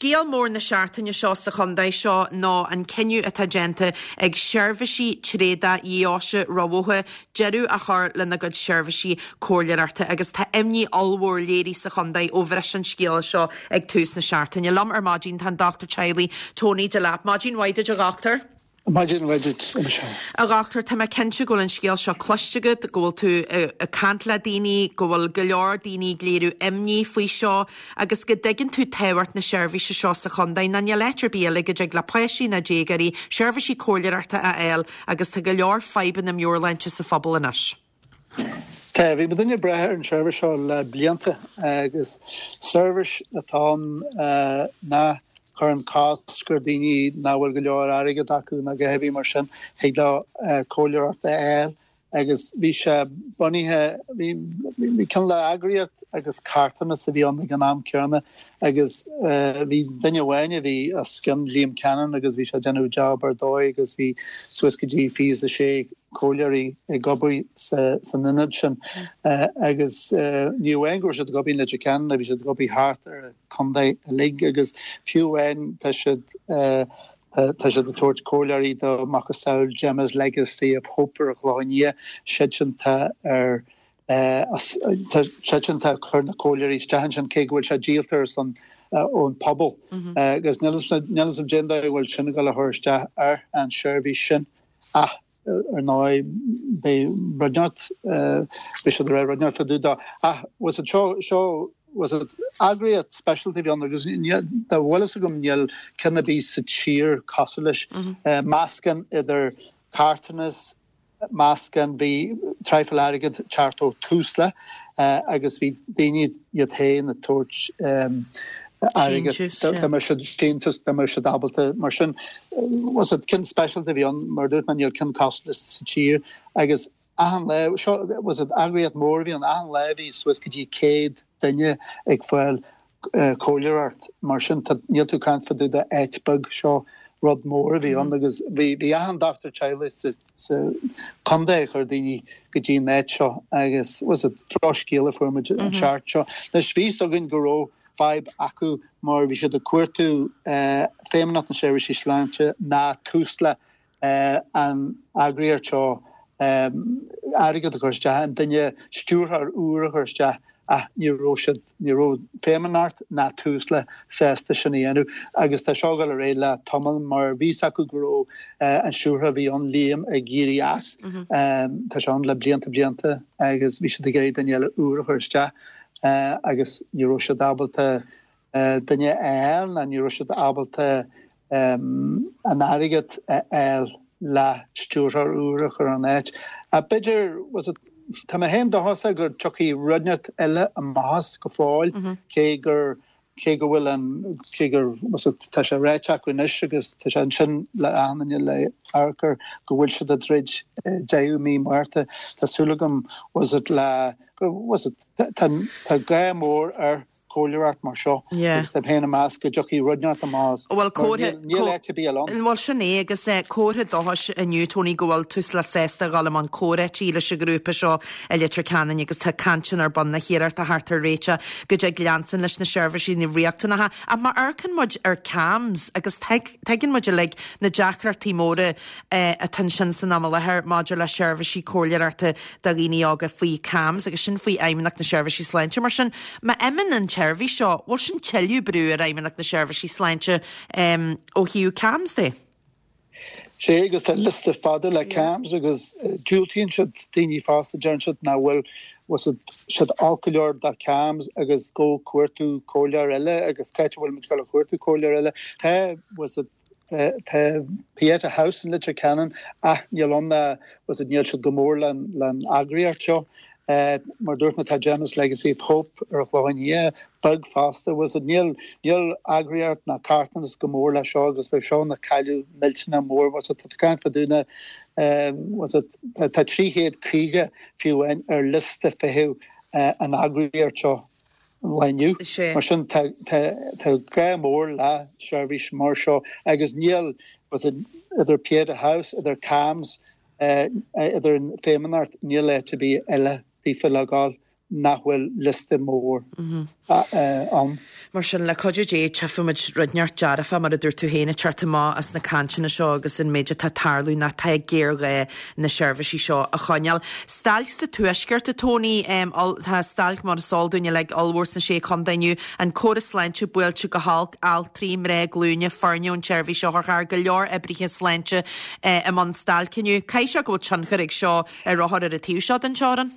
Scéal mór na seachtaine seo sa chontae seo ná an cinneadh atá déanta ag Seirbhísí Tréadach Dheoise Ráth Bhoth deireadh a chur lena gcuid seirbhísí comhairleoireachta agus tá imní ollmhór léirithe sa chontae ó bhris an scéala seo ag tús na seachtaine. Liom ar maidin tá an Dochtúir Teaghlaigh Tony Delap. Maidin mhaith duit a dhochtúir. Maidin mhaith duit, a Michelle. A dhochtúir, tá mé cinnte go bhfuil an scéal seo cloiste agat, go bhfuil tú ag caint le daoine, go bhfuil go leor daoine ag léiriú imní faoi seo agus go dtuigeann tú tábhacht na seirbhíse seo sa chontae. Ná níl áit ar bith eile go dtig le páistí ná déagóirí seirbhísí comhairleoireachta a fháil agus tá go leor fadhbanna meabhairshláinte sa phobal anois. Tá, bhí muidinne ag brath ar an seirbhís seo le blianta agus seirbhís atá ann nach gcuireann cosc ar daoine nach bhfuil go leor airgead acu nó a dhath ar bith mar sin, thig leo comhairleoireacht a fháil agus bhí sé bunaithe, bhí cineál de eagraíocht agus carthanas a bhí ann ag an am céanna agus bhí duine amháin a bhí os cionn, Liam Cannon, agus bhí sé ag déanamh job ar dóigh agus bhí suas go dtí 26 comhairleoirí ag obair san ionad sin agus ní amháin go raibh siad ag obair in Leitir Ceanainn, bhí siad ag obair thart ar an chontae uilig agus fiú amháin tá siad tá siad ag tabhairt comhairleoirí do macasamhail Gemma's Legacy of Hope ar an Chlochán Liath, siadsan tá ar tá siadsan tá ag cur na comhairleoirí isteach ansin cé go bhfuil sé díolta ar son ón pobal agus níl a fhios agam cén dóigh a bhfuil sin ag dul a chur isteach ar an seirbhís sin. Ach ar ndóigh, beidh rud inteacht, beidh siad ag rá rud inteacht fá dtaobh dó. Ach was it seo, seo, was it eagraíocht speisialta a bhí ann agus dá bhfuil fhios agam níl ceann ar bith sa tír cosúil leis. Meascán idir carthanas, meascán, bhí traidhfil airgead teacht ó Tusla agus bhí daoine iad féin ag tabhairt airgead dá mbeadh siad síntiús, dá mbeadh siad ábalta. Mar sin, was it ceann speisialta a bhí ann, mar a dúirt mé, níl ceann cosúil leis sa tír agus achan lá, seo, was it eagraíocht mór a bhí ann, achan lá bhí suas go dtí 100 duine ag fáil comhairleoireacht. Mar sin, tá, níl tú ag caint fá dtaobh de áit beag, seo rud mór a bhí ann agus bhí, bhí achan dochtúir teaghlaigh sa, sa chontae ag cur daoine go dtí an áit seo agus was it drochscéal a fuair muid an tseachtain seo. Anois bhí fhios againn go raibh fadhb acu mar bhí siad ag cuartú Feidhmeannacht na Seirbhísí Sláinte ná Tusla an eagraíocht seo airgead a chur isteach, an duine stiúrthóir úr a chur isteach ach ní raibh siad, ní raibh Feidhmeannacht ná Tusla sásta sin a dhéanamh agus tá seo ag dul ar aghaidh le tamall mar bhí fhios acu go raibh an stiúrthóir a bhí ann, Liam, ag éirí as. Tá sé ann le blianta blianta agus bhí siad ag iarraidh duine eile úr a chur isteach agus ní raibh siad ábalta duine a fháil ná ní raibh siad ábalta an airgead a fháil le stiúrthóir úr a chur in áit. Ach b'fhéidir, was it, tá mé féin dóchasach go dtiocfaidh rud inteacht eile amach as go fóill, cé gur, cé go bhfuil an, cé gur, was it, tá sé ráite acu anois agus tá sé ansin le achan duine le amharc air go bhfuil siad ag druid deireadh mí Márta. Tá súil agam, was it, le, was it, Tá gá mór ar chomhairleoireacht mar seo agus tá mé féin ag meas go dtiocfaidh rud inteacht amach as mar níl áit ar bith eile ann. Bhuel sin é agus comhartha dóchais inniu Tony go bhfuil Tusla sásta a dhul i mbun comhráití leis an ghrúpa seo i Leitir Ceanainn agus tá cainteanna ar bun le hiarracht a theacht ar réiteach go dtig leanstan leis na seirbhísí riachtanacha. Ach má amharcann muid ar CAMHS agus tuigeann muid uilig na deacrachtaí móra atá ansin san am i láthair maidir le seirbhísí comhairleoireachta do dhaoine óga faoi CAMHS agus sin faoi Fheidhmeannacht na Seirbhísí Sláinte. Mar sin, má imíonn an tseirbhís seo, bhfuil sin tuilleadh brú ar Fheidhmeannacht na Seirbhísí Sláinte ó thaobh CAMHS de? Sea, agus tá liosta fada le CAMHS agus diúltaíonn siad daoine fosta, deireann siad nach bhfuil siad olc go leor do CAMHS agus go cuartú comhairleoir eile agus cá háit a bhfuil muid ag dul a chuartú comhairleoir eile. Tá Tá Pieta House in Leitir Ceanainn ach níl ann ná was it níl siad go mór len eagraíocht seo. Mar dúirt mé tá Gemma's Legacy of Hope ar an Chlochán Liath beag fosta was it níl níl eagraíocht ná carthanas go mór le seo agus bheadh seo ina cailleadh millteanach mór was it tá caint fá dtaobh na was it tá 350 fiú amháin ar liosta feithimh an eagraíocht seo. lá inniu. Mar sin tá gá mór le seirbhís mar seo agus níl idir Pieta House, idir CAMHS, idir an Feidhmeannacht, níl áit ar bith eile daofa le gabháil. nach bhfuil liosta mór ann. Mar sin, le cuidiú Dé, tchífimid rud inteacht dearfach, mar a dúirt tú féin, ag teacht amach as na cainteanna seo agus an méid atá ag tarlú nó tá géarghá na seirbhísí seo a choinneáil. Stailc sa Tuaisceart, a Tony, tá stailc, mar is eol dúinn uilig, ollmhór sna Sé Chontae inniu, an córas sláinte buailte go holc, altraí, mná glúine, foirne ón tseirbhís otharcharr, go leor oibrithe sláinte i mbun stailce inniu. Caithfidh sé go bhfuil tionchar ag seo ar othair ar an taobh seo den teorainn?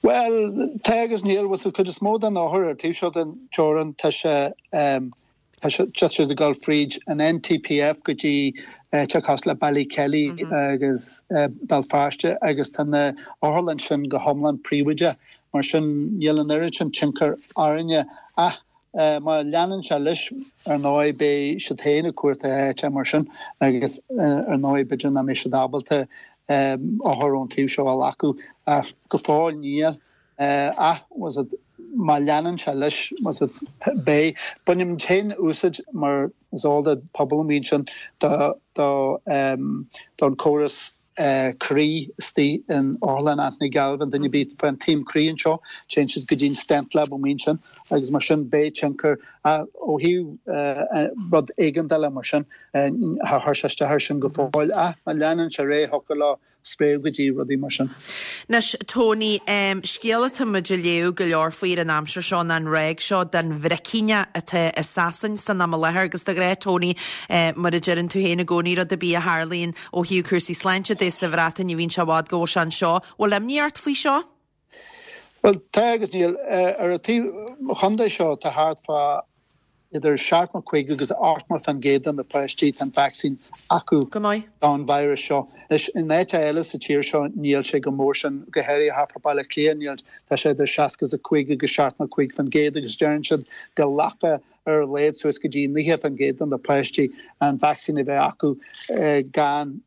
Bhuel, tá agus níl. Bhuel, sa chuid is mó den othar ar an taobh seo den teorainn, tá sé, tá sé, tá siad ag dul fríd an NTPF go dtí áiteacha cosúil le Ballykelly agus Béal Feirste agus tá na otharlann sin go hiomlán príobháideach. Mar sin, níl an oiread sin tionchar orainne. Ach má leanann sé leis, ar ndóigh, beidh siad féin ag cuartú áite mar sin agus ar ndóigh b'fhéidir nach mbeidh siad ábalta othair ón taobh seo a ghlacadh. Ach go fóill níl. Ach má leanann sé leis, beidh. Bainimid féin úsáid mar is eol don pobal amuigh ansin don chóras croí istigh in Otharlann Anthony Galvin, duine ar bith fán taom croí anseo, téann siad go dtí an stent lab amuigh ansin agus mar sin beidh tionchar ó thaobh rud éigeandála mar sin, char chuir sé isteach air sin go fóill ach má leanann sé ar aghaidh thiocfadh leo spréadh go dtí rudaí mar sin. Anois, Tony, scéal atá muid ag léamh go leor faoi ar an aimsir seo ná an ráig seo den bhricíneach atá i Sasain san am i láthair agus de ghnáth, Tony, mar a deireann tú féin i gcónaí, rud ar bith a tharlaíonn ó thaobh cúrsaí sláinte de sa Bhreatain ní bhíonn sé i bhfad go bhfuil sé anseo. Bhfuil imní ort faoi seo? Bhuel, tá agus níl. Ar an taobh chontae seo tá thart fá idir 75 agus 80% de na páistí tá an vacsaín acu Go maith. don virus seo. Anois, in áiteacha eile sa tír seo níl sé chomh mór sin, go háirithe thart fá Baile Átha Cliath níl, tá sé idir 65 agus 75% agus deireann siad go nglacfadh ar a laghad suas go dtí 90% de na páistí an vacsaín a bheith acu gan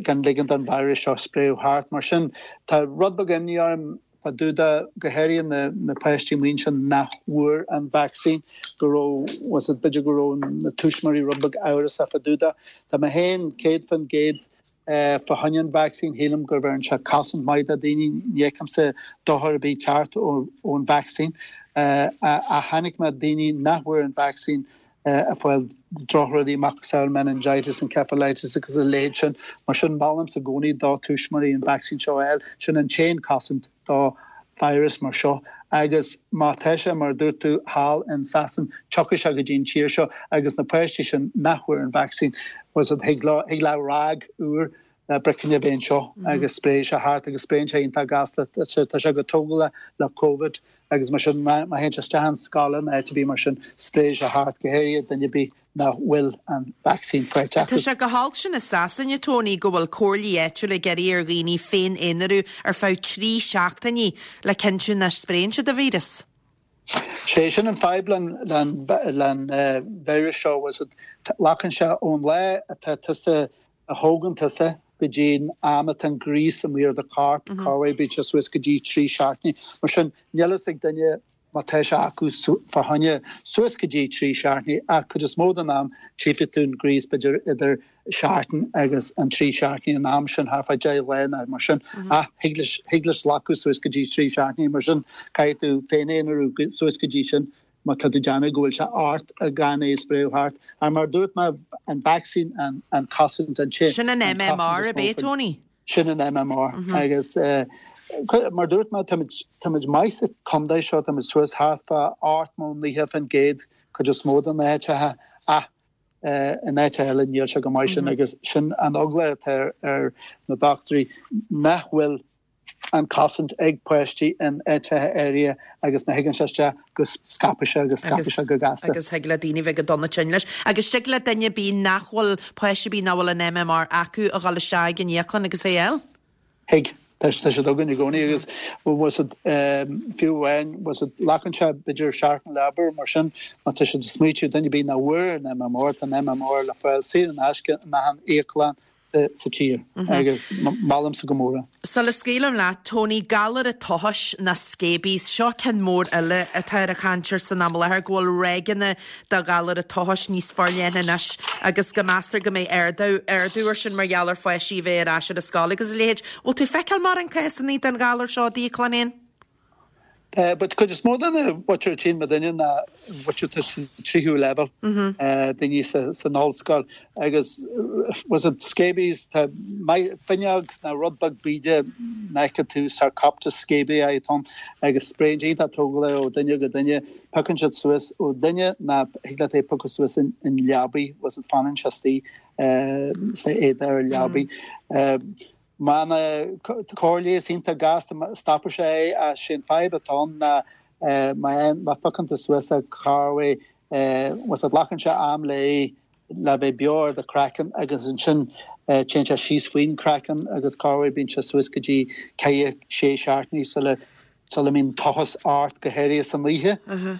gan ligean don virus seo spréadh thart. Mar sin, tá rud beag imní orm fá dtaobh de, go háirithe na na páistí amuigh ansin nach bhfuair an vacsaín, go raibh, was it, b'fhéidir go raibh na tuismitheoirí rud beag amhrasach fá dtaobh de. Tá mé féin 100% Fá choinne an vacsaín, shílim go bheireann sé cosaint maith do daoine. Ní fheicimse dochar ar bith teacht ón vacsaín. Ach chonaic mé daoine nach bhfuair an vacsaín ag fáil drochrudaí macasamhail meningitis, encephalitis agus a leithéid sin. Mar sin, molaimse i gcónaí do tuismitheoirí an vacsaín seo a fháil. Sin an t-aon cosaint do virus mar seo agus má tá sé, mar a dúirt tú, thall in Sasain, tiocfaidh sé go dtí an tír seo agus na páistí sin nach bhfuair an vacsaín, was it, thig leo, thig le ráig úr le bricín a bheith anseo agus spréifidh sé thart agus spréann sé iontach gasta, tá sé chomh tógálach le Covid agus mar sin má théann sé isteach in scoil nó áit ar bith mar sin, spréifidh sé thart, go háirithe duine ar bith nach bhfuil an vacsaín faighte acu. Tá sé go holc sin i Sasain, a Tony, go bhfuil comhairlí áitiúla ag iarraidh ar dhaoine féin-aonarú ar feadh 3 seachtainí le cinntiú nach spréann siad an víreas. Sé sin an fadhb le an víreas seo, was it, glacann sé ón lá atá tusa, a thógann tusa go dtí an am atá an gríos amuigh ar do chorp, corruair bíonn sé suas go dtí 3 seachtainí. Mar sin, níl fhios ag duine má tá sé acu fá choinne suas go dtí 3 seachtainí ach cuid is mó den am tchífidh tú an gríos b'fhéidir idir seachtain agus an 3 seachtainí an am sin thart fá 10 lá nó mar sin ach thig leis thig leis glacadh suas go dtí 3 seachtainí mar sin caithfidh tú féin-aonarú suas go dtí sin má tá tú ag déanamh go bhfuil sé ort gan é a spréadh thart ach mar a dúirt mé an vacsaín an an cosaint an Sin an MMR ab é Tony? Sin an MMR agus mar a dúirt mé táimid maith sa chontae seo, táimid suas thart fá 80, 90% cuid is mó de na háiteacha ach in áiteacha eile níl sé chomh maith sin agus sin an eagla atá ar na dochtúirí nach bhfuil an cosaint ag páistí in áiteacha áirithe agus má thigeann sé isteach go scaipfidh sé agus scaipfidh sé go gasta. Agus thig le daoine bheith go dona tinn leis. Agus tig le duine ar bith nach bhfuil, páiste ar bith nach bhfuil an MMR acu a dhul isteach ag an íoclann agus é a fháil? Thig. Tá siad againn i gcónaí agus was it, fiú amháin, was it, glacann sé b'fhéidir seachtain le obair mar sin má tá siad ag smaoitiú duine ar bith nach bhfuair an MMR, tá an MMR le fáil saor in aisce in achan íoclann sa tír agus molaimse go mór é. Sula scaoilim leat, Tony, galar an tochais nó scabies, seo ceann mór eile atá ar an chaint air san am i láthair, go bhfuil ráigeanna de ghalar an tochais níos forleithne anois agus go meastar go mbeidh ardú, ardú air sin mar gheall ar pháistí a bheith ar ais ar an scoil agus a leithéid. Bhfuil tú ag feiceáil mórán cásanna den ghalar seo i d'íoclann féin? But cuid is mó de na mhuintir a tchíonn muidinne ná mhuintir atá sa tríú leibhéal, daoine san ollscoil agus was it scabies, tá finneog nó rud beag bíde nach bhfeiceann tú, Sarcoptes scabiei atá ann agus spréann sé iontach tógálach ó duine go duine, piocann siad suas ó duine ná thig leat é a phiocadh suas in leabaidh, was it fanann sé istigh sna éadaí ar leabaidh. Má tá cóir leighis iontach gasta, stopfaidh sé é ach sé an fadhb atá ann ná má phiocann tú suas é corruair was it glacann sé am le le bheith beo ar do chraiceann agus ansin téann sé síos faoin craiceann agus corruair bíonn sé suas go dtí ceithre, sé seachtainí sula sula mbíonn tochas ort go háirithe san oíche.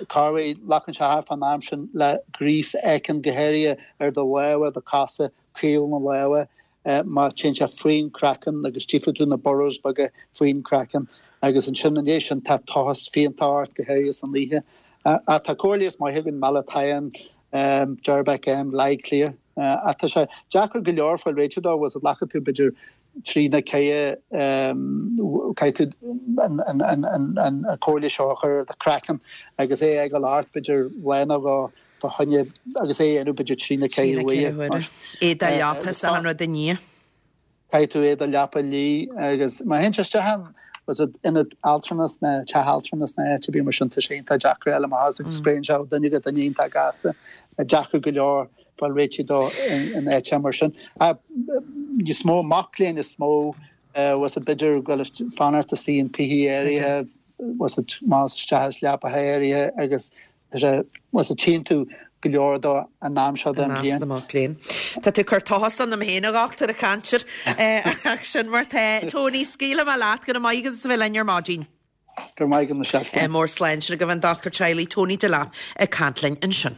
Corruair glacann sé thart fán am sin le gríos éicint go háirithe ar do lámha, do chosa, caol na lámha. má téann sé faoin craiceann agus tchífidh tú na burrows beaga faoin craiceann agus ansin i ndiaidh sin tá tochas fiánta ort go háirithe san oíche. Ach tá cóir leighis maith againn, Malathion, Derbac M, Lyclear. Ach tá sé deacair go leor fáil réiteach dó, bhfuil glacann tú b'fhéidir trí nó ceithre caithfidh tú an cóir leighis seo a chur ar do chraiceann agus é a fhágáil ort b'fhéidir lá nó dhó fá choinne agus é a dhéanamh b'fhéidir trí nó ceithre huaire. Éadach leapa is achan rud i ndiaidh. Caithfidh tú éadach leapa a lí agus má théann sé isteach in was it ionad altranais nó teach altranais nó áit ar bith mar sin tá sé iontach deacair a fháil amach as agus spréann sé ó duine go duine iontach gasta. Deacair go leor fáil réitigh dó in áit mar sin. Níos mó mac léinn is mó was it b'fhéidir go bhfuil fanacht istigh in tithe áirithe was it más isteach is leapacha áirithe agus Tá sé, was it tchíonn tú go leor dó an am seo den bhliain. I measc na mac léinn. Tá tú ag cur tochas ionam féin, a dhochtúir, ag caint air. Ach sin mar tá. Tony, scaoilfidh mé leat. Go raibh maith agat as a bheith linn ar maidin. Go raibh maith agat, Michelle. Slán. Mór slán. Sin agaibh an dochtúir teaghlaigh Tony Delap ag caint linn ansin.